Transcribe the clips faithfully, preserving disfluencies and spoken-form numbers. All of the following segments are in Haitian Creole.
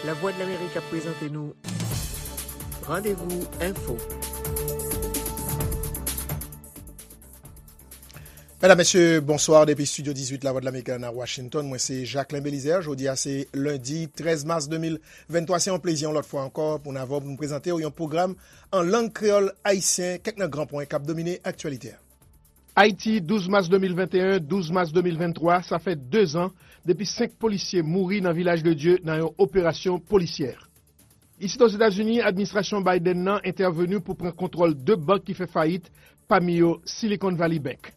Lavwadlamerik ap prezante nou Randevou Enfo. Medam, mesye, bonswa. Depi estidyo dizuit Lavwadlamerik la nan Washington, mwen se Jacquelin Belizaire. Jodi a se lendi trèz mas de mil venntwa. Se yon plezi yon lòt fwa ankò pou n avè w pou n prezante w yon pwogram an lang kreyòl ayisyen, kèk nan gran pwen k ap domine aktyalite a. Ayiti, douz mas de mil venteyen, douz mas de mil venntwa, sa fè dezan depi senk polisye mouri nan Vilaj de Dye nan yon operasyon polisyè. Isit Ozetazini, administrasyon Biden nan entèveni pou pran kontwòl de bank ki fè fayit, pami yo Silicon Valley Bank.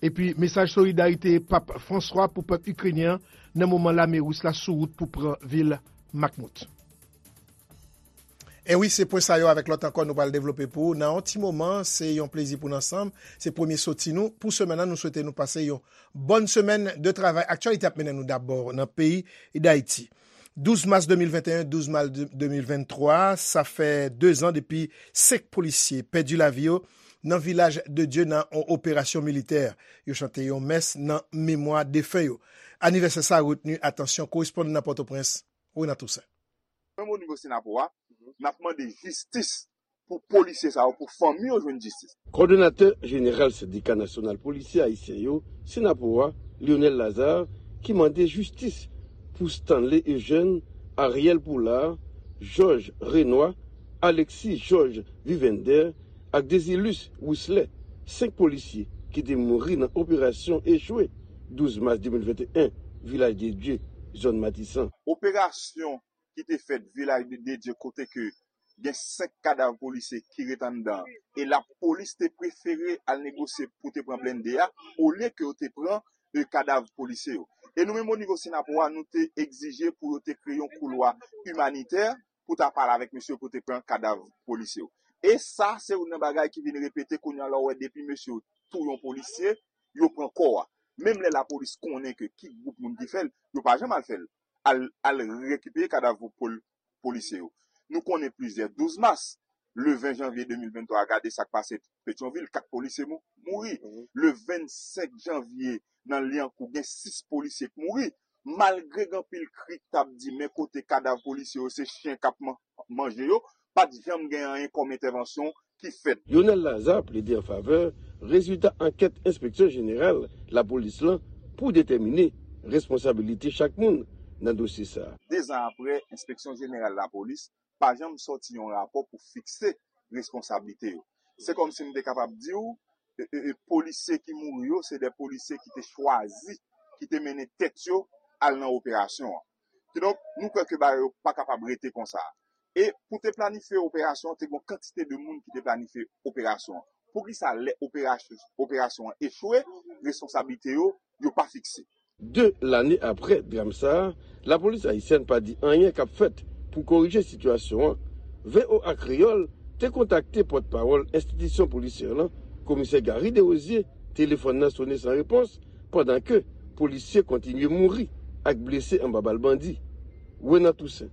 Epi, mesaj solidarite Pap Franswa pou pèp ikrenyen an nan moman lame ris la sou wout pou pran vil Bakhmut. E wi, se pwen sa yo avèk lòt ankò nou pral devlope pou ou nan yon ti moman. Se yon plezi pou n ansanm. Se premye soti nou pou semèn nan. Nou swete nou pase yon bòn semèn de travay. Aktyalite ap mennen nou dabò nan peyi Dayiti. Douz mas de mil venteyen, douz mas de mil venntwa, sa fè dezan depi senk polisye pèdi lavi yo nan Vilaj de Dye nan yon operasyon militè. Yo chante yon mès nan memwa defen yo. Anivèsè sa a retni atansyon korespondan nan Pòtoprens, Renan Toussaint. Menm o nivo Senapo a, n ap mande jistis pou polisye sa yo, pou fanmi yo jwenn jistis. Kòdonatè jeneral Sendika Nasyonal Polisye Ayisyen yo, Senapo a, Lionel Lazarre, ki mande jistis pou Stanley Eugène, Ariel Poulard, Georges Renois, Alexis Georges Vivender ak Désilus Wisley, senk polisye ki te mouri nan operasyon echwe douz mas de mil venteyen, Vilaj de Dye, zòn Matisan. Operasyon ki te fèt Vilaj de Dye kote ke gen senk kadav polisye ki ret anndan an. E lapolis te prefere al negosye pou te pran blende a, olye ke yo te pran e, kadav polisye yo. E nou menm o nivo Senapo a, nou te egzije pou yo te kreye yon koulwa imanitè pou ta pale avèk mesye yo pou te pran kadav polisye yo. E sa, se youn nan bagay ki vin repete kounye a, lè w wè depi mesye yo touye yon polisye, yo pran kò a. Menm lè lapolis konnen ke ki gwoup moun ki fè l, yo pa janm al fè l. Al, al rekipere kadav pol-, polisye yo. Nou konnen plizyè douz mas, le ven janvye de mil venntwa a, gade sa k pase Petyonvil, kat polisye mou-, mouri. Le vennsenk janvye, nan Lyankou, gen sis polisye k mouri. Malgre gen anpil kri k t ap di, men kote kadav polisye yo, se chen k ap man-, manje yo, pa t janm gen anyen kòm entèvansyon ki fèt. Lionel Lazarre plede an favè rezilta ankèt Enspeksyon Jeneral Lapolis lan pou detèmine responsabilite chak moun nan dosye sa a. Dezan apre, Enspeksyon Jeneral Lapolis pa janm sòti yon rapò pou fikse responsablite yo. Se kòmsi m te kapab di w, e, e, e, polisye ki mouri yo, se de polisye ki te chwazi, ki te mennen tèt yo al nan operasyon an. Kidonk, nou kwè ke bagay yo pa kapab rete konsa. E pou te planifye operasyon an, te gen yon kantite de moun ki te planifye operasyon an. Poukisa lè operasyon, operasyon an echwe, responsablite yo, yo pa fikse? De lane apre dram sa a, lapolis ayisyèn pa di anyen k ap fèt pou korije sitiyasyon an. V O A Kreyòl te kontakte pòtpawòl enstitisyon polisyè lan, Komisè Gary Desrosiers, telefòn nan sonnen san repons, pandan ke polisye kontinye mouri ak blese anba bal bandi. Renan Toussaint,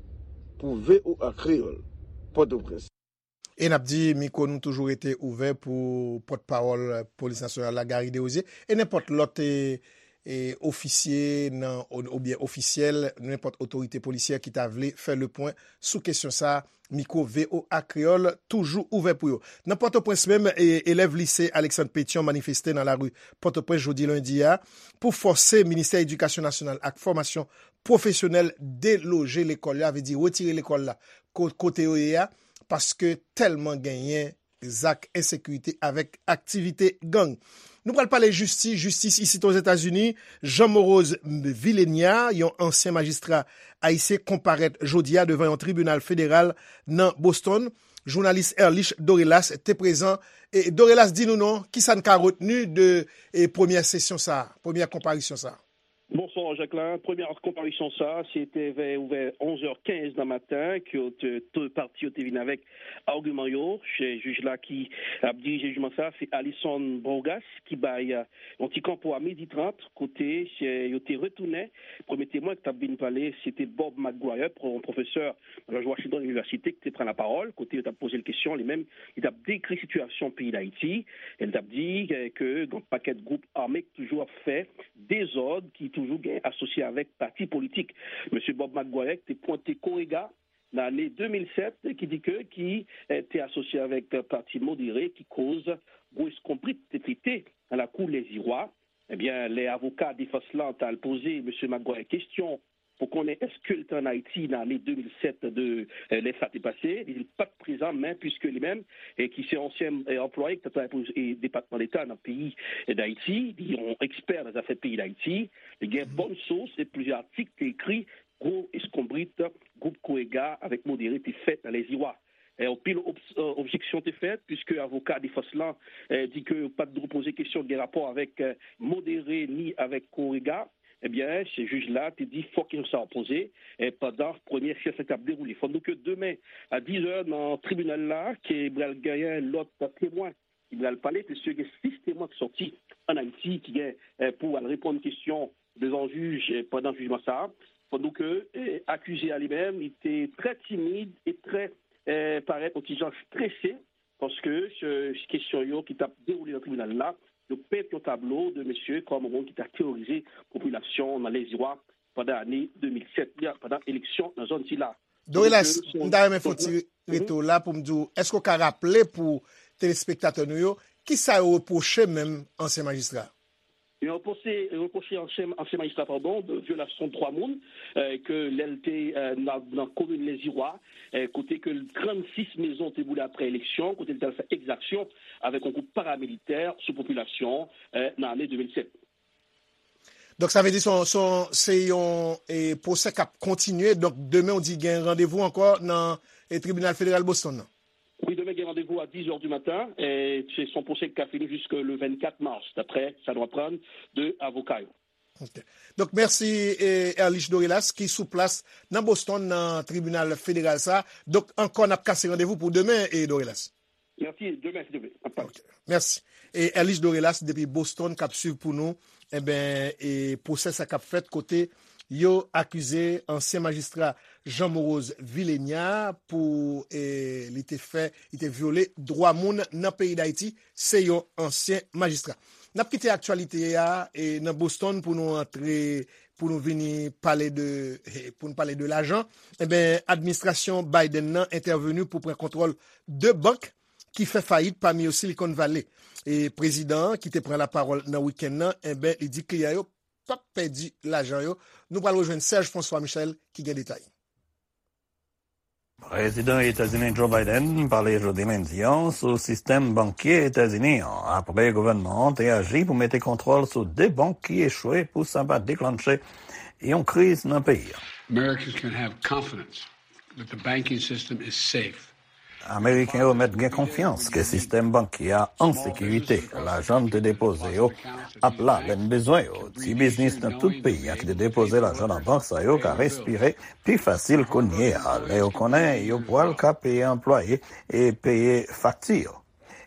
pou V O A Kreyòl, Pòtoprens. E n ap di, mikwo nou toujou rete ouvè pou pòtpawòl Polis Nasyonal la, Gary Desrosiers, e nenpòt lòt, e, e, ofisye nan, ou, oubyen ofisyèl, nenpòt otorite polisyè ki ta vle fè le pwen sou kesyon sa a, mikwo V O A Kreyòl toujou ouvè pou yo. Nan Pòtoprens menm, e, elèv lise Alexandre Pétion manifeste nan lari Pòtoprens jodi lendi a pou fòse Ministè Edikasyon Nasyonal ak Fòmasyon Pwofesyonèl deloje lekòl yo, sa vle di retire lekòl la ko-, kote yo ye a, paske tèlman genyen zak ensekirite avèk aktivite gang. Nou pral pale jistis, jistis isit Ozetazini. Jean Morose Villénia, yon ansyen majistra ayisyen, konparèt jodi a devan yon tribinal federal nan Boston. Jounalis Erlich Dorelace te prezan. E Dorelace, di nou non, kisa n ka retni de, e, premyè sesyon sa a, premyè konparisyon sa a? Bonswa, Jacquelin. Premyè konparisyon sa a, se te vè, vè onz è kenz nan maten ke yo te, de pati yo te vin avèk agiman yo. Se jij la ki ap dirije jijman sa a, se Alison Bourgass ki bay, euh, yon ti kanpo a midi trant, kote, euh, yo te retounen. Premye temwen ki t ap vin pale, se te Bob McGuire, pwo-, pwofesè nan George Washington University, ki te pran lapawòl, kote yo t ap poze l kesyon, li menm, li t ap dekri sitiyasyon peyi Dayiti, e li t ap di, euh, ke gen yon pakèt gwoup ame ki toujou ap fè dezòd, ki toujou Gen asosye avèk pati politik. Mesye Bob McGuire te pwente Korega nan ane de mil sèt, ki di ke ki eh, te asosye avèk pati modere ki koz gwo eskonbrit te pete nan lakou Lèziwa. Ebyen, lè avoka defans lan t al poze Mesye McGuire kesyon pou konnen èske l te ann Ayiti nan ane de mil sèt de eh, lè sa te pase, li di l pa t prezan, men piske li menm, eh, ki se ansyen eh, anplwaye ki t ap travay pou eh, Depatman Deta nan peyi eh, Dayiti, li yon ekspè nan zafè peyi Dayiti, li gen bòn sous e plizyè atik te ekri gwo eskonbrit gwoup Korega avèk modere te fè nan Lèziwa. Eh, anpil ob- eh, objeksyon te fèt, piske avoka defans lan eh, di ke yo pa t dwe poze kesyon ki gen rapò avèk eh, modere ni avèk Korega. Ebyen, se jij la te di fòk kesyon sa a poze eh, pandan premyè syans la k ap dewoule. Fò n di ke demen, a diz è nan tribinal la, ke pral genyen lòt temwen ki pral pale, piske gen sis temwen ki sòti ann Ayiti ki gen eh, pou al reponn kesyon devan jij eh, pandan jijman sa a. Fò n di ke eh, akize a li menm, li te trè timid e trè eh, parèt yon ti jan strese, paske se kesyon yo ki t ap dewoule nan tribinal la, yo pent yon tablo de mesye kòm yon moun ki t ap teworize popilasyon nan Lèziwa pandan ane de mil sèt la, pandan eleksyon nan zòn sila. Dorelas, m ta renmen fè yon ti retou la pou m di w, èske w ka raple pou telespektatè nou yo, ki sa yo repwoche menm ansyen majistra? Yo repwoche, repwoche ansyen, ansyen majistra, padon, de vyolasyon dwa moun, eh, ke lè l te eh, nan, nan komin Lèziwa, eh, kote ke trannsis mezon te boule apre eleksyon, kote l te al fè egzaksyon avèk yon gwoup paramilitè sou popilasyon eh, nan ane de mil sèt. Donk, sa vle di se yon, se yon, se yon eh, pwosè k ap kontinye. Donk, demen, w di gen randevou ankò nan eh, tribinal federal Boston nan? Wi, demen gen randevou a diz è di maten. Eh, se son pwosè ki ka fini jiske le vennkat mas, daprè sa nou aprann de avoka yo. Ok. Donk, mèsi eh, Erlich Dorelas ki sou plas nan Boston nan tribinal federal sa. Donk, ankò n ap kase randevou pou demen, eh, Dorelas. Mèsi, demen, si Dye vle, n ap pale. Ok. Mèsi. E Erlich Dorelas depi Boston k ap swiv pou nou, enben, e pwosè sa k ap fèt kote yo akize ansyen majistra Jean Morose Villénia pou e, li te fè, li te vyole dwa moun nan peyi Dayiti. Se yon ansyen majistra. N ap kite aktyalite a e, nan Boston pou nou antre, pou nou vini pale de, e, pou nou pale de lajan. Enben, administrasyon Biden nan entèveni pou pran kontwòl de bank ki fè fayit, pami yo Silicon Valley. E prezidan an, ki te pran lapawòl nan wikenn nan, enben, li di kliyan yo p ap pèdi lajan yo. Nou pral rejwenn Serge François Michel ki gen detay. Prezidan Etazini Joe Biden pale jodi lendi an sou sistèm bankye Etazini an, apre gouvènman an te aji pou mete kontwòl sou de bank ki echwe pou sa pa deklanche yon kriz nan peyi a. Americans can have confidence that the banking system is safe. Ameriken yo mèt gen konfyans ke sistèm bankye a an sekirite. Lajan m te depoze yo ap la lè m bezwen yo. Ti biznis nan tout peyi a ki te depoze lajan nan bank sa yo ka respire pi fasil kounye a, lè yo konnen yo pral ka peye anplwaye e peye fakti yo.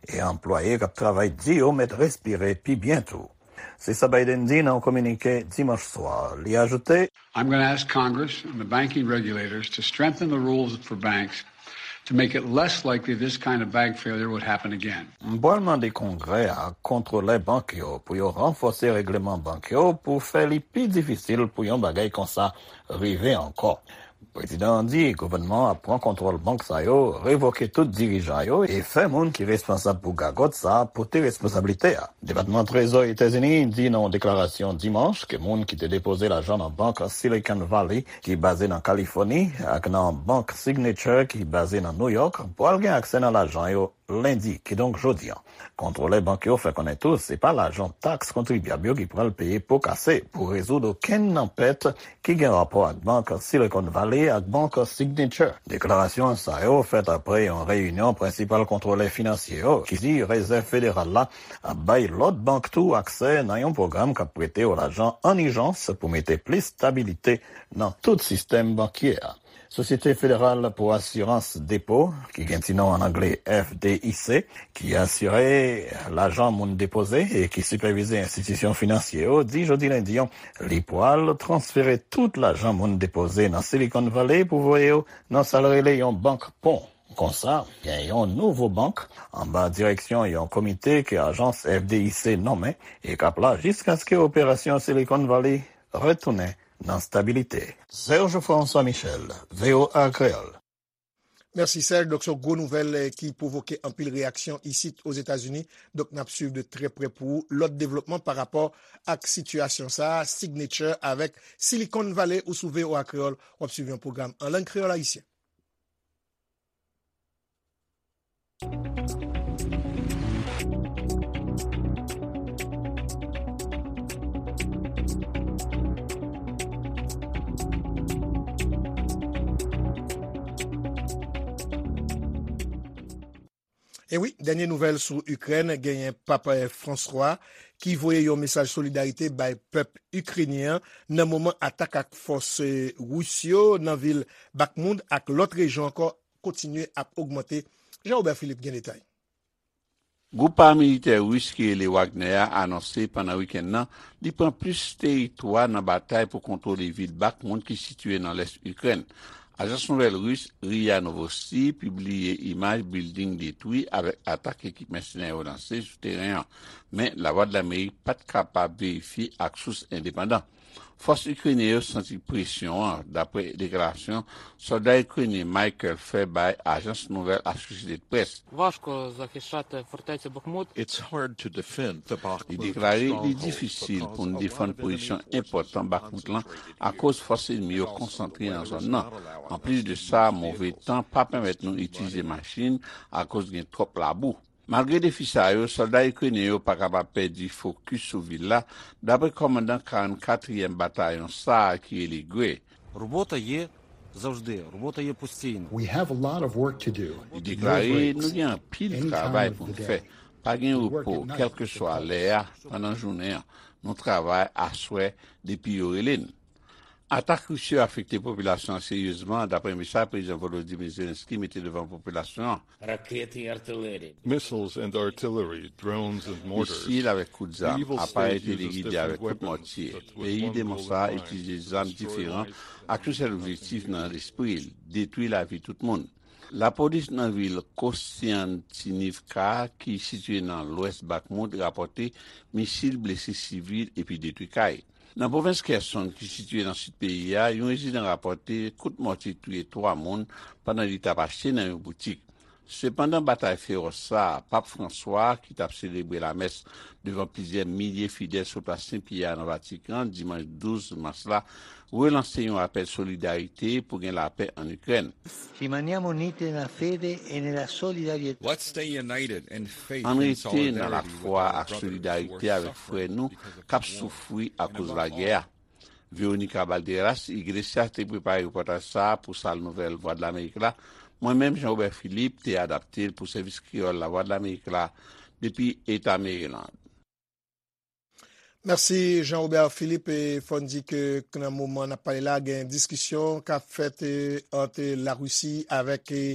E anplwaye k ap travay di yo mèt respire pi byen tou. Se sa Biden di nan yon kominike dimanch swa. Li ajoute, I'm going to ask Congress and the banking regulators to strengthen the rules for banks to make it less likely this kind of bank failure would happen again. M pral mande Kongrè a ak kontwolè bank yo pou yo ranfòse règleman bank yo pou fè li pi difisil pou yon bagay konsa rive ankò. Prezidan an di gouvènman an ap pran kontwòl bank sa yo, revoke tout dirijan yo e fè moun ki responsab pou gagòt sa a pote responsablite a. Depatman Trezò Etazini di nan yon deklarasyon dimanch ke moun ki te depoze lajan nan bank Silicon Valley ki baze nan Kalifòni ak nan bank Signature ki baze nan New York pral gen aksè nan lajan yo lendi, kidonk jodi a. Kontwolè bank yo fè konnen tou se pa lajan taks kontribyab yo ki pral peye po kase pou rezoud okenn nan pèt ki gen rapò ak bank Silicon Valley ak bank Signature. Deklarasyon sa yo fèt apre yon reyinyon prensipal kontwolè finansye yo ki di Rezèv Federal la ap bay lòt bank tou aksè nan yon pwogram k ap prete yo lajan an ijans pou mete plis stabilite nan tout sistèm bankye a. Sosyete Federal pou Asirans Depo, ki gen ti non an angle F D I C, ki asire lajan moun depoze e ki sipèvize enstitisyon finansye yo, di jodi lendi an, li pral transfere tout lajan moun depoze nan Silicon Valley pou voye yo nan sa l rele yon bank pon. Konsa, gen yon nouvo bank anba direksyon yon komite ke ajans F D I C nonmen e k ap la jiskaske operasyon Silicon Valley retounen nan stabilite. Serge François Michel, V O A Kreyòl. Mèsi, Serge. Donk, se yon gwo nouvèl, eh, ki pwovoke anpil reyaksyon isit Ozetazini. Donk, n ap swiv de trè prè pou ou lòt devlopman pa rapò ak sitiyasyon sa a. Signature avèk Silicon Valley ou sou V O A Kreyòl, w ap swiv yon pwogram an lang kreyòl ayisyen. E wi, dènye nouvèl sou Ikrèn, genyen Pap, eh, Franswa ki voye yon mesaj solidarite bay pèp ikrenyen an nan moman atak ak fòs, eh, ris yo nan vil Bakhmut ak lòt rejyon ankò kontinye ap ogmante. Jean Robert Philippe gen detay. Gwoup paramilitè ris ki rele Wagner a anonse pandan wikenn nan li pran plis teritwa nan batay pou kontwole vil Bakhmut ki sitiye nan lès Ikrèn. Ajans nouvèl ris ria Novosti pibliye imaj bilding detwi avèk atak ekip mèsenè yo lanse sou teren an, men Lavwadlamerik pa t kapab verifye ak sous endepandan. Fòs ikrenyen yo santi presyon an, dapre deklarasyon sòlda ikrenyen Michael fè bay ajans nouvèl Associated Press. Важко захищати фортецю Бахмут. Li deklare li difisil pou n defann pozisyon enpòtan Bakhmut lan akoz fòs enmi yo konsantre nan zòn nan. Anplis de sa, move tan pa pèmèt nou itilize machin akoz gen twòp labou. Malgre defi sa yo, sòlda ikrenyen yo pa kapab pèdi fokis sou vil la, dapre kòmandan karannkatriyèm batayon sa a ki rele Gray. Робота є завжди, робота є постійно. We have a lot of work to do. Li deklare, nou gen anpil travay pou n fè. Pa gen repo, kèlkeswa lè a, pandan jounen an. Nou travay aswè depi yo rele n. Atak ris yo afekte popilasyon an seryezman, dapre mesaj Prezidan Volodymyr Zelensky mete devan popilasyon an. Ракети і артилерія. Missiles and artillery, drones and mortars. Misil avèk kout zam, aparèy telegide avèk kout mòtye. Peyi demon sa a itilize zam diferan ak yon sèl objektif nan lespri l, detwi lavi tout moun. Lapolis nan vil Kostiantynivka, ki sitiye nan lwès Bakhmut, rapòte misil blese sivil epi detwi kay. Nan pwovens Kherson, ki sitiye nan sid peyi a, yon rezidan rapòte kout mòtye touye twa moun pandan li t ap achte nan yon boutik. Sepandan, batay fewòs sa a, Pap Franswa, ki t ap selebre lamès devan plizyè milye fidèl sou plas Sen Pyè a nan Vatikan, dimanch douz mas la, relanse yon apèl solidarite pou gen lapè ann Ikrèn. Rimaniamo uniti nella fede e nella solidarietà. Let's stay united in faith and solidarity with our brothers who are suffering because of the war. Ann rete nan lafwa ak solidarite avèk frè nou k ap soufri akoz lagè a. Veronica Balderas Iglesias te prepare repòtaj sa a pou Sal Nouvèl Vwadlamerik la. Mwen menm, Jean Robert Philippe, te adapte l pou Sèvis Kreyòl Lavwadlamerik la depi Eta Maryland. Mèsi, Jean Robert Philippe. E fò n di ke nan moman n ap pale la, gen diskisyon k ap fèt, e, ant Larisi avèk, e,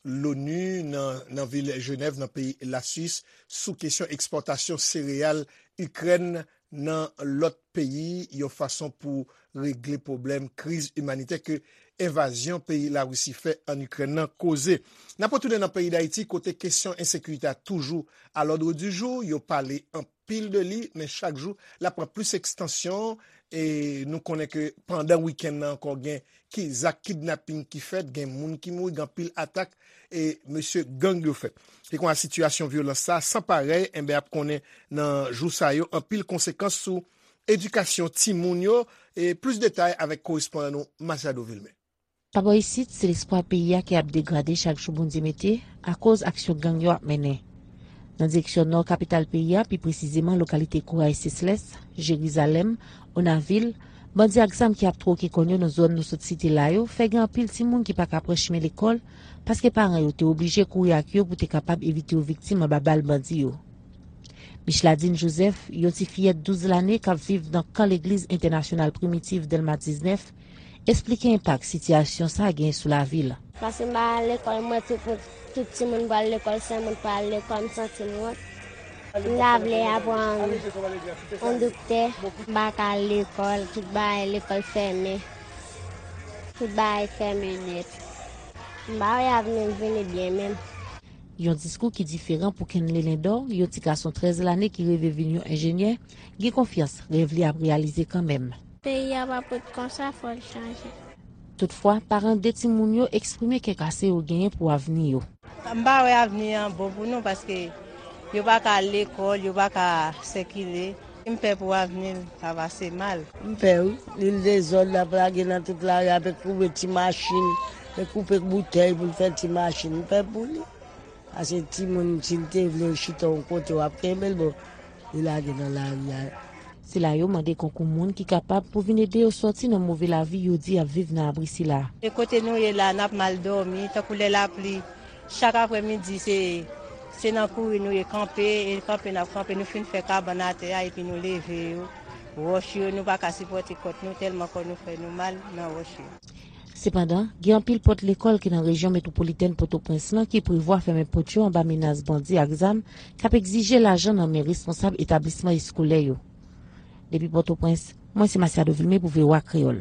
l'ONU nan, nan vil Jenèv, nan peyi Laswis, sou kesyon ekspòtasyon sereyal Ikrèn nan lòt peyi, yon fason pou regle pwoblèm kriz imanitè ke envazyon peyi Larisi fè ann Ikrèn nan koze. N ap retounen nan peyi Dayiti, kote kesyon ensekirite a toujou a lòd di jou. Yo pale anpil de li, men chak jou, l ap pran plis ekstansyon. E nou konnen ke pandan wikenn nan ankò, gen ki zak kidnaping ki fèt, gen moun ki mouri, gen anpil atak, e mesye gang yo fè. Se konsa sitiyasyon vyolans sa a san parèy, enben, ap konnen nan jou sa yo anpil konsekans sou edikasyon timoun yo. E plis detay avèk korespondan nou Machado Vilmé. Pabò isit, se lespwa peyi a ki ap degrade chak jou Bondye mete akoz aksyon gang yo ap mennen. Nan direksyon nò kapital peyi a, pi presizeman lokalite Kouray Seslès, Jerizalèm, Onavil, bandi ak zam ki ap twoke kòn yo nan zòn nou sot site la yo fè gen anpil timoun ki pa ka pran chimen lekòl paske paran yo te oblije kouri ak yo pou te kapab evite yo viktim anba bal bandi yo. Micheladine Joseph, yon ti fiyèt douz lane k ap viv nan kan legliz entènasyonal Primitif Dèlma diznèf, esplike enpak sitiyasyon sa a genyen sou lavi l. Paske m pa al lekòl, m wè tout moun, tout timoun pral lekòl, sèl mwen k pa al lekòl, m santi m wont. M ta vle aprann yon doktè, m pa ka al lekòl, tout bagay lekòl fèmen. Tout bagay fèmen nèt. M pa wè avni m vini byen menm. Yon diskou ki diferan pou Kenley Lindor, yon ti gason trèz lane ki reve vin yon enjenyè, gen konfyans rèv li ap reyalize kanmenm. Peyi a pa pot konsa, fò l chanje. Toutfwa, paran de timoun yo eksprime kè kase yo genyen pou avni yo. M pa wè avni an bon pou nou paske yo pa ka al lekòl, yo pa ka sikile. M pè pou avni l pa pase mal. M pè wi, li l dezòd, l ap lage nan tout lari, ap koupe ti machin, e koupe boutèy pou l fè ti machin. M pè pou li. Paske timoun, si l te vle chita yon kote, w ap kenbe l, bon, li lage nan lari a. Sila yo mande konkou moun ki kapab pou vin ede yo sòti nan move lavi yo di y ap viv nan abri sila. E kote nou ye la, n ap mal dòmi, tankou lè lapli, chak aprèmidi, se, se nan kouri nou ye kanpe, e kanpe n ap kanpe, nou fin fè kabann atè a, epi nou leve yo. Wòch yo, nou pa ka sipòte kòt nou, tèlman kò nou fè nou mal nan wòch yo. Sepandan, gen anpil pòt lekòl ki nan rejyon metwopolitèn Pòtoprens lan ki prevwa fèmen pòt yo anba menas bandi ak zam k ap egzije lajan nan men responsab etablisman eskolè yo. Depi Pòtoprens, mwen se Masiado Vilme pou V O A Kreyòl.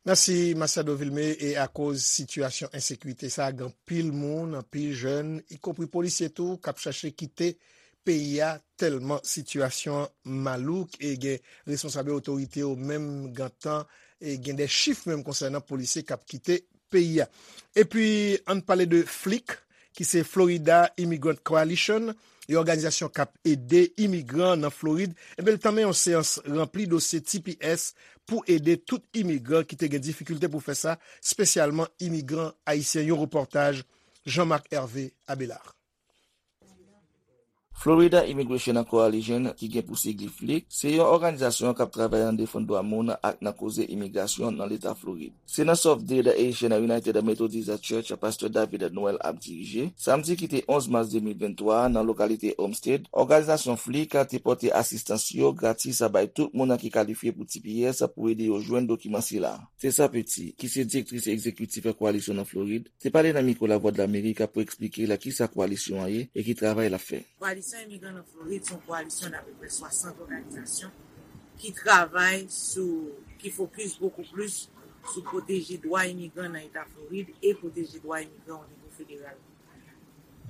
Mèsi, Masiado Vilme. E akoz sitiyasyon ensekirite sa a, gen anpil moun, anpil jèn, ikonpri polisye tou, k ap chache kite peyi a, tèlman sitiyasyon an malouk, e gen responsab yo, otorite yo menm gentan, e gen de chif menm konsènan polisye k ap kite peyi a. Epi, ann pale de FLIC, ki se Florida Immigrant Coalition, yon òganizasyon k ap ede imigran nan Florid. Ebyen, l tanmen yon seyans ranpli dosye T P S pou ede tout imigran ki te gen difikilte pou fè sa, espesyalman imigran ayisyen. Yon repòtaj Jean Marc Hervé Abelard. Florida Immigration Coalition, ki gen pou sigli FLIC, se yon òganizasyon k ap travay nan defann dwa moun ak nan koze imigrasyon nan Leta Florid. Se nan Sòf Ded Haitian United Methodist Church pastè David Noël ap dirije. Samdi ki te onz mas de mil venntwa a, nan lokalite Homestead, òganizasyon FLIC te pote asistans yo gratis bay tout moun ki kalifye pou T P S pou ede yo jwenn dokiman sila. Tessa Petit, ki se direktris egzekitif Koalisyon nan Florid, te pale nan mikwo Lavwadlamerik pou eksplike la kisa koalisyon an ye e ki travay l ap fè. Koalisyon Imigran nan Florid se yon koalisyon daprè swasant òganizasyon ki travay sou, ki fokis bokou plis sou pwoteje dwa imigran nan Eta Florid e pwoteje dwa imigran o nivo federal.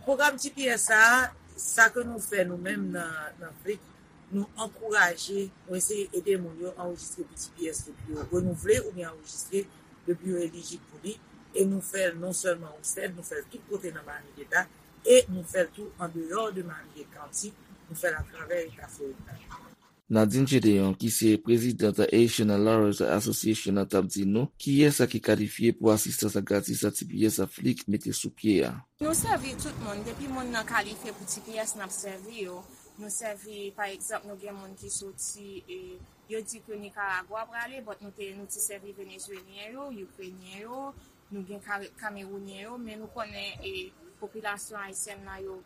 Pwogram T P S sa a, sa ke nou fè nou menm nan, nan FLIC, nou ankouraje, nou eseye ede moun yo anrejistre pou T P S depi yo renouvle oubyen anrejistre depi yo elijib pou li. E nou fè l non sèlman Homestead, nou fè l tout kote nan Miami-Dade, e nou fè l tou andeyò de Miami-Dade County, nou fè l atravè Eta Florid la. Nadine Gedeon, ki se prezidant Haitian Lawyers Association, t ap di nou kiyès ki kalifye pou asistans gratis T P S FLIC mete sou pye a. Nou sèvi tout moun, depi moun nan kalifye pou T P S, n ap sèvi yo. Nou sèvi, pa egzanp, nou gen moun ki soti, e, yo di ke Nikaragwa prale, but nou te, nou te sèvi Venezuelyen yo, Ikrenyen yo, nou gen Kare-, Kamerounyen yo, men nou konnen, e, popilasyon ayisyèn nan yo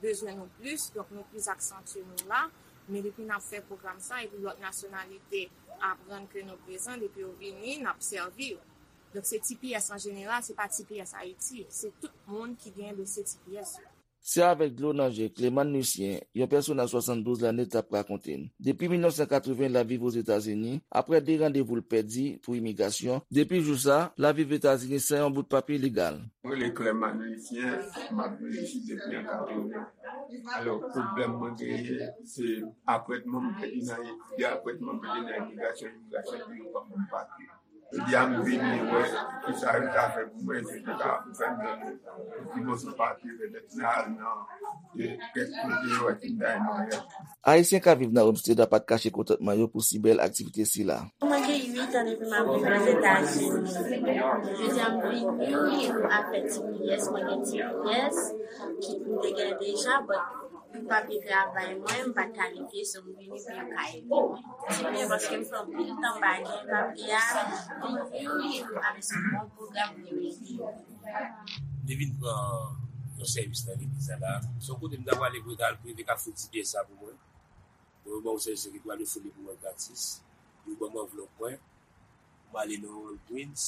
bezwen nou plis, donk nou plis aksantye nou la. Men depi n ap fè pwogram sa, epi lòt nasyonalite aprann ke nou prezan, depi yo vini, n ap sèvi yo. Donk se T P S an jeneral, se pa T P S Ayiti, se tout moun ki gen dosye T P S yo. Se avèk dlo nan je Clément Lucien, yon pèsonaj swasanndouz lane, t ap rakonte n. Depi mil nèf san katreven, l ap viv Ozetazini, aprè de randevou l pèdi pou imigrasyon. Depi jou sa, l ap viv Etazini san yon bout papye legal. Mwen rele Clément Lucien, m ap viv isit depi an katreven. Alò, pwoblèm mwen genyen, se apwentman m pèdi nan, de apwentman m pèdi nan imigrasyon, imigrasyon di yo pa ban m papye. Jodi a m vini wè kisa yo ta fè pou mwen, se pou ta fè m jwenn yon ti moso papye, petèt m al nan, e, kèk kote yo wè ki m ta jwenn yon. Ayisyen k ap viv nan Homestead la pa t kache kontantman yo pou si bèl aktivite sila. Mwen gen uit an depi m ap viv Ozetazini. Jodi a m vini pou afè T P S, mwen gen T P S ki m te gen deja, but pou papye travay mwen, m pa t kalifye, so m vini pou yo ka ede mwen. Ti byen paske m fè anpil tan m pa gen papye a, m vini avèk yon bon pwogram pou yo ede m. Li vin pran yon sèvis nan legliz la la. Se yon kote m ta prale pou yo ta al prive k ap fout T P S sa pou mwen. Bon, yo ban yon sèvis ki pou ale fout li pou mwen gratis. Yo ban m anvlòp mwen. M ale nan Walgreens.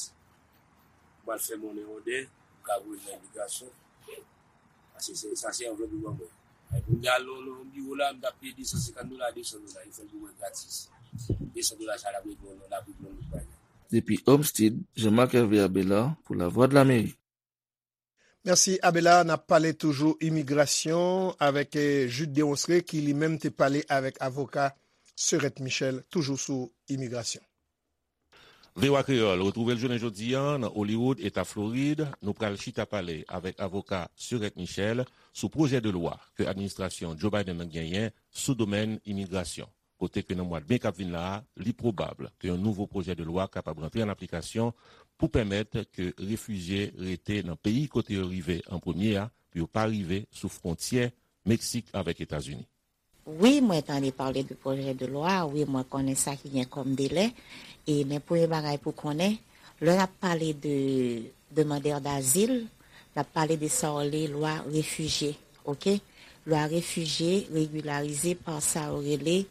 M al fè monnen òdè. M ka voye l nan imigrasyon. Paske se, sa se anvlòp yo ban mwen. Ay, pou m te al nan, nan biwo la, m t ap peye de san senkant dola, de san dola. Yo fè l pou mwen gratis. De san dola sa l ap regle yon, l ap regle yon lòt bagay. Depi Homestead, Jean-Marc Hervé Abelard pou Lavwadlamerik. Mèsi, Abelard. N ap pale toujou imigrasyon avèk, eh, Jude Deronceray, ki li menm te pale avèk avoka Serette Michel, toujou sou imigrasyon. V O A Kreyòl retwouve l jounen jodi a nan Hollywood, Eta Florid. Nou pral chita pale avèk avoka Serette Michel sou pwojè de lwa ke administrasyon Joe Biden nan genyen sou domèn imigrasyon, kote ke nan mwa de me k ap vin la a, li pwobab ke yon nouvo pwojè de lwa kapab rantre an aplikasyon pou pèmèt ke refijye rete nan peyi kote yo rive an premye a, pou yo pa rive sou fwontyè Meksik avèk Etazini. Wi, mwen tande pale de pwojè de lwa, wi, mwen konnen sa ki gen kòm delè. E men premye bagay pou konnen, lè n ap pale de demandè dazil, n ap pale de sa yo rele lwa refijye, oke? Lwa refijye regilarize pa sa yo rele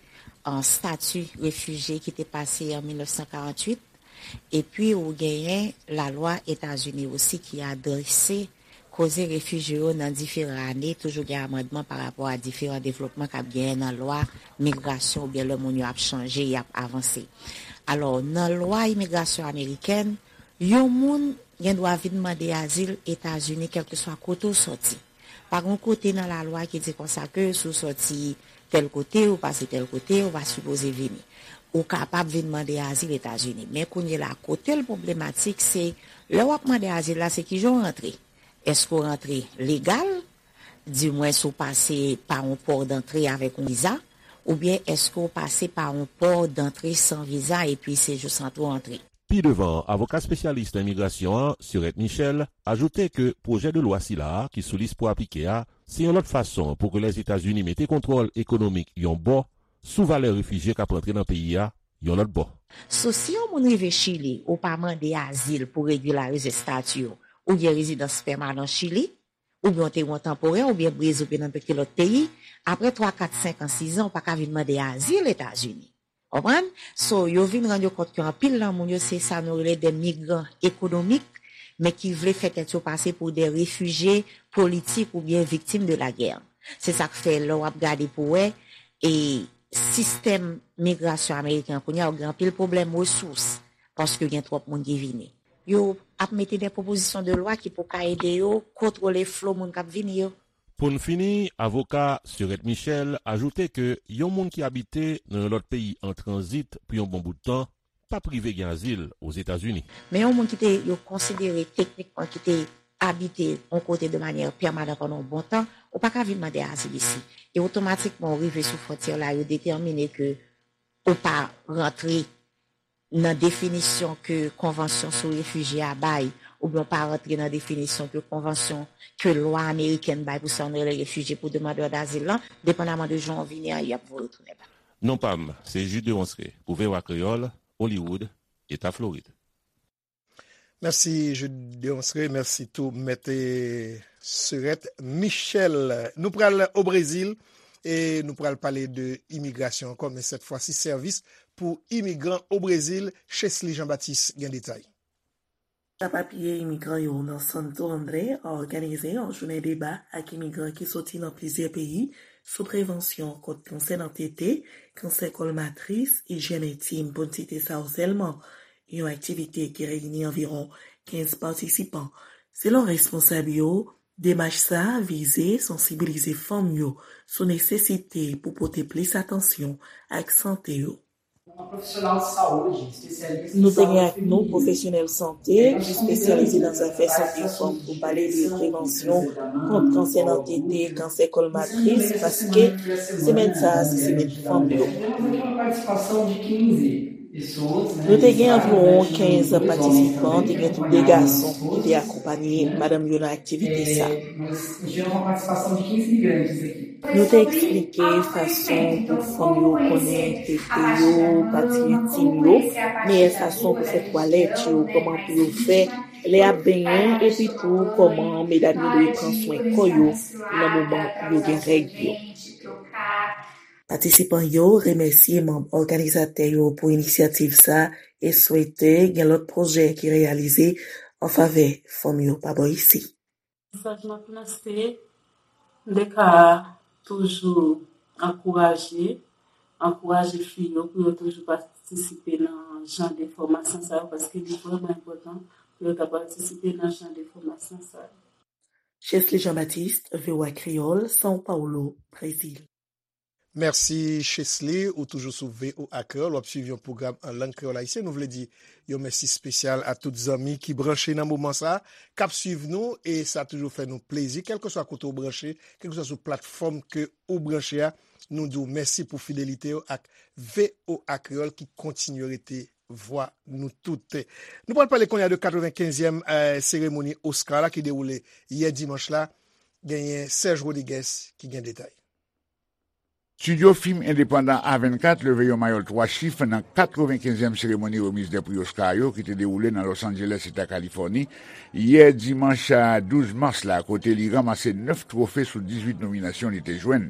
an stati refijye ki te pase an mil nèf san karanntuit. Epi ou genyen lalwa Etazini osi ki adrese koze refijye yo nan diferan ane, toujou gen amandman pa rapò a diferan devlopman k ap genyen nan lwa migrasyon oubyen lè moun yo ap chanje, y ap avanse. Alò, nan lwa imigrasyon amerikèn, yon moun gen dwa vin mande azil Etazini kèlkeswa kote w sòti. Pa gen yon kote nan lalwa ki di konsa ke si w sòti tèl kote, ou pase tèl kote, ou pa sipoze vini. Ou kapab vin mande azil Etazini. Men kounye la, kote l pwoblematik, se lè w ap mande azil la, se kijan w rantre. Èske w rantre legal, dimwens ou pase pa yon pò dantre avèk yon viza, oubyen èske w pase pa yon pò dantre san viza epi se jis antre w antre? Pi devan, avoka espesyalis nan imigrasyon an, Serette Michel, ajoute ke pwojè de lwa sila a ki sou lis pou aplike a, se yon lòt fason pou ke Lèzetazini mete kontwòl ekonomik yon bò sou valè refijye k ap rantre nan peyi a yon lòt bò. So, si yon moun rive Chili, ou pa mande azil pou regilarize estati w, ou gen rezidans pèmanan Chili, oubyen w te gen yon tanporè, oubyen Brezil, oubyen nenpòt ki lòt peyi, apre twa, kat, senk an, sis an, ou pa ka vin mande azil Etazini. Konprann? So, yo vin rann yo kont ke anpil nan moun yo se sa nou rele de migran ekonomik, men ki vle fè tèt yo pase pou de refijye politik oubyen viktim de lagè. Se sa k fè lè w ap gade pou wè, e sistèm migrasyon ameriken an kounye a, ou gen anpil pwoblèm resous, paske gen twòp moun ki vini. Yo ap mete de pwopozisyon de lwa ki pou ka ede yo kontwole flo moun k ap vini yo. Pou n fini, avoka Serette Michel ajoute ke yon moun ki abite nan yon lòt peyi an tranzit pou yon bon bout tan p ap rive gen azil Ozetazini. Men yon moun ki te yo konsidere teknikman ki te abite yon kote de manyè pèmanan pandan yon bon tan, ou pa ka vin mande azil isi. E otomatikman ou rive sou fwontyè la, yo detèmine ke ou pa rantre nan definisyon ke konvansyon sou refijye a bay, oubyen w pa rantre nan definisyon ke konvansyon ke lwa amerikèn bay pou sa nou rele refijye, pou demandè dazil lan, depandaman de jan w vini an, y ap voye w tounen ba. Non pa m, se Jude Deronceray pou V O A Kreyòl, Hollywood, Eta Florid. Mèsi Jude Deronceray, mèsi tou Mèt Serette Michel. Nou pral o Brezil e nou pral pale de imigrasyon ankò, men sèt fwa si sèvis pou imigran o Brezil. Chesly Jean Baptiste gen detay. Sa papye imigran yo nan Santo André òganize yon jounen deba ak imigran ki soti nan plizyè peyi sou prevansyon kont kansè nan tete, kansè kòl matris, ijyèn entim, pou n site sa yo sèlman. Yon aktivite ki reyini anviwon kenz patisipan. Selon responsab yo, demach sa a vize sansibilize fanm yo sou nesesite pou pote plis atansyon ak sante yo. Nou te gen ak nou pwofesyonèl sante ki espesyalize nan zafè sante fanm pou pale de prevansyon kont kansè nan tete, kansè kòl matris, paske semèn sa a se semèn fanm yo. Nou te gen anviwon kenz patisipan, te gen tou de gason ki te akonpaye madanm yo nan aktivite sa. Nou te eksplike fason pou fanm yo konnen tete yo, pati entim yo, meyè fason pou fè twalèt yo, kòman pou yo fè lè y ap benyen, epi tou kòman medam yo dwe pran swen kò yo nan moman yo gen règ yo. Patisipan yo remèsye manm òganizatè yo pou inisyativ sa e swete gen lòt pwojè ki reyalize an favè fanm yo pa bò isi. Mesaj m ap lanse, M T K a toujou ankouraje, ankouraje fi yo pou yo toujou patisipe nan jan de fòmasyon sa yo, paske li vrèman enpòtan pou yo ta patisipe nan jan de fòmasyon sa yo. Chesly Jean Baptiste, V O A Kreyòl, São Paulo, Brezil. Mèsi Chesly, ou toujou sou V O A Kreyòl, w ap swiv yon pwogram an lang kreyòl ayisyen. Nou vle di yon mèsi espesyal a tout zanmi ki branche nan moman sa a, k ap swiv nou, e sa toujou fè nou plezi, kèlkeswa kote w branche, kèlkeswa sou platfòm ke ou branche a, nou di w mèsi pou fidelite w ak V O A Kreyòl ki kontinye rete vwa nou tout. Nou pral pale kounye a de katrevenkenzyèm, eh, seremoni Oscar la ki dewoule yè dimanch la. Genyen Serge Rodriguez ki gen detay. Estidyo fim endepandan A vennkat leve yon mayòl twa chif nan katrevenkenzyèm seremoni remiz de pri Oscar yo ki te dewoule nan Los Angeles, Eta Kalifòni, yè dimanch a douz mas la, kote li ranmase nèf twofe sou dizuit nominasyon li te jwenn.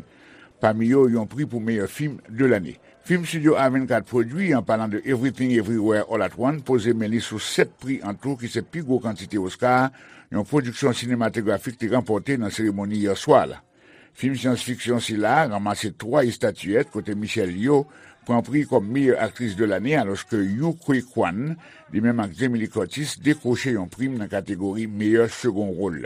Pami yo, yon pri pou meyè fim de lane. Fim Studio A vennkat pwodui, an palan de Everything Everywhere All at Once, poze men li sou sèt pri an tou ki se pi gwo kantite Oscar yon pwodiksyon sinematografik te ranpòte nan seremoni yè swa la. Fim syans fiksyon sila a ranmase twa estatiyèt, kote Michelle Yeoh pran pri kòm meyè aktris de lane, alòske Yu Ke Kwan, li menm ak Jamie Lee Curtis, dekwoche yon prim nan kategori meyè segon wòl.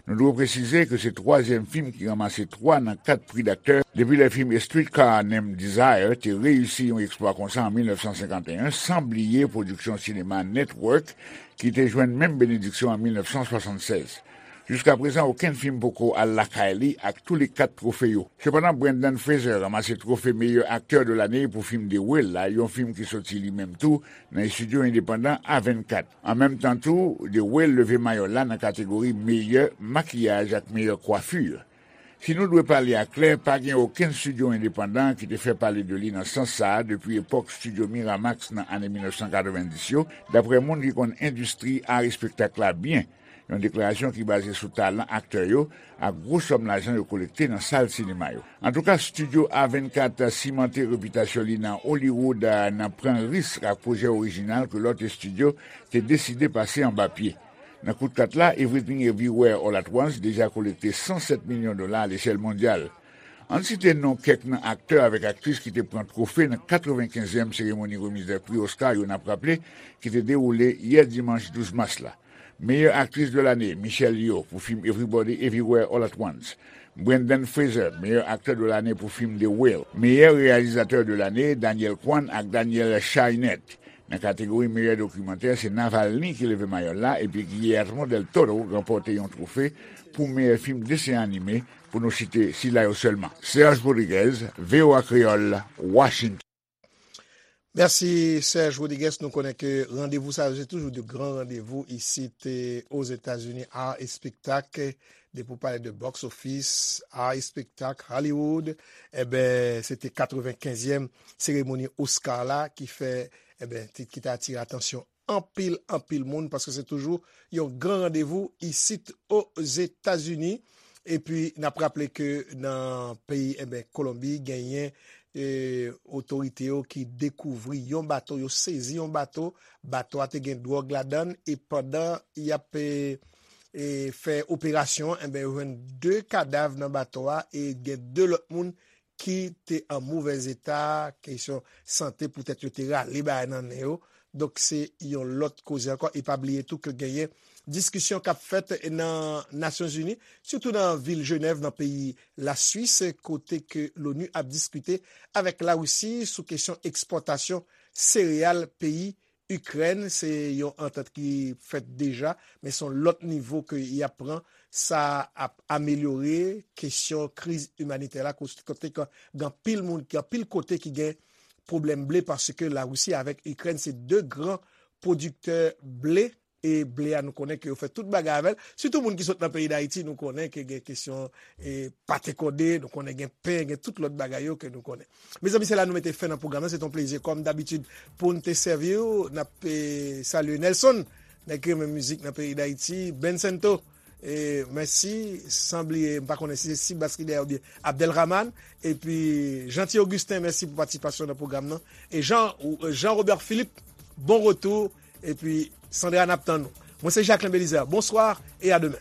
Nou dwe presize ke se twazyèm fim ki ranmase twa nan kat pri daktè depi lè fim A Streetcar Named Desire te reyisi yon eksplwa konsa an mil nèf san senkanteyen, san bliye pwodiksyon sinema Network, ki te jwenn menm benediksyon an mil nèf san swasannsèz. Jiska prezan, okenn fim poko al lakay li ak tou le kat twofe yo. Sepandan, Brendan Fraser ranmase twofe meyè aktè de lane pou fim The Whale la, yon fim ki soti li menm tou nan estidyo endepandan A vennkat. An menm tan tou, The Whale leve mayòl la nan kategori meyè makiyaj ak meyè kwafi. Si nou dwe pale aklè, pa gen okenn estidyo endepandan ki te fè pale de li nan sans sa a depi epòk estidyo Miramax nan ane mil nèf san katrevenndis yo, daprè moun ki konn endistri a espektak la byen. Yon deklarasyon ki baze sou talan aktè yo ak gwo sòm lajan yo kolekte nan sal sinema yo. Antouka, Studio A vennkat simante repitasyon li nan Hollywood, a, nan pran risk ak pwojè orijinal ke lòt estidyo te deside pase anba pye. Nan kout kat la, Everything Everywhere All at Once deja kolekte san sèt milyon dola alechèl mondyal. Ann site non kèk nan aktè avèk aktris ki te pran twofe nan katrevenkenzyèm seremoni remiz de pri Oscar yo, n ap raple, ki te dewoule yè dimanch douz mas la. Meyè aktris de lane, Michelle Yeoh pou fim Everybody Everywhere All at Once. Brendan Fraser, meyè aktè de lane pou fim The Whale. Meyè reyalizatè de lane, Daniel Kwan ak Daniel Scheinert. Nan kategori meyè dokimantè, se Navalny ki leve mayòl la, epi Guillermo del Toro ranpòte yon twofe pou meyè fim desen anime, pou nou site sila yo sèlman. Serge Rodriguez, V O A Kreyòl, Washington. Mèsi, Serge Rodriguez. Nou konnen ke randevou sa yo, se toujou de gran randevou isit, eh, Ozetazini, art e spektak. Depi w pale de box office, art e spektak, Hollywood, enben, se te katrevenkenzyèm seremoni Oscar la ki fè, enben, ki te atire atansyon anpil, anpil moun, paske se toujou yon gran randevou isit Ozetazini. Epi, n ap raple ke nan peyi, enben, Kolonbi, genyen, eh, otorite yo ki dekouvri yon bato, yo sezi yon bato, bato a te gen dwòg ladan l, e pandan y ap, eh, eh, fè operasyon, enben, yo jwenn de kadav nan bato a, e gen de lòt moun ki te an movèz eta, kesyon sante, poutèt yo te rale bagay nan nen yo. Donk, se yon lòt koze ankò. E pa bliye tou ke genyen diskisyon k ap fèt nan Nasyonzini, sitou nan vil Jenèv, nan peyi Laswis, kote ke l'ONU ap diskite avèk Larisi sou kesyon ekspòtasyon sereyal peyi Ikrèn. Se yon antant ki fèt deja, men se yon lòt nivo ke y ap pran. Sa ap amelyore kesyon kriz imanitè la, kote, kote ke gen anpil moun, gen anpil kote ki gen pwoblèm ble, paske Larisi avèk Ikrèn se de gran pwodiktè ble, e ble a nou konnen ke yo fè tout bagay avè l. Sitou moun ki sot nan peyi Dayiti, nou konnen ke gen kesyon, e, pate kòde, nou konnen gen pen, gen tout lòt bagay yo ke nou konnen. Mezanmi, se la nou mete fen nan pwogram nan. Se t on plezi, kòm dabitid, pou n te sèvi w. N ap, e, salye Nelson, nèg ki renmen mizik nan peyi Dayiti, Ben Sento, e, mèsi, san bliye, m pa konnen si se Sibas ki dèyè oubyen Abdelrahman, epi Jeanty Augustin, mèsi pou patisipasyon nan pwogram nan. E Jean, Jean Robert Philippe, bon retou, epi Sandra, n ap tann ou. Mwen se Jacquelin Belizaire, bonswa e a demen.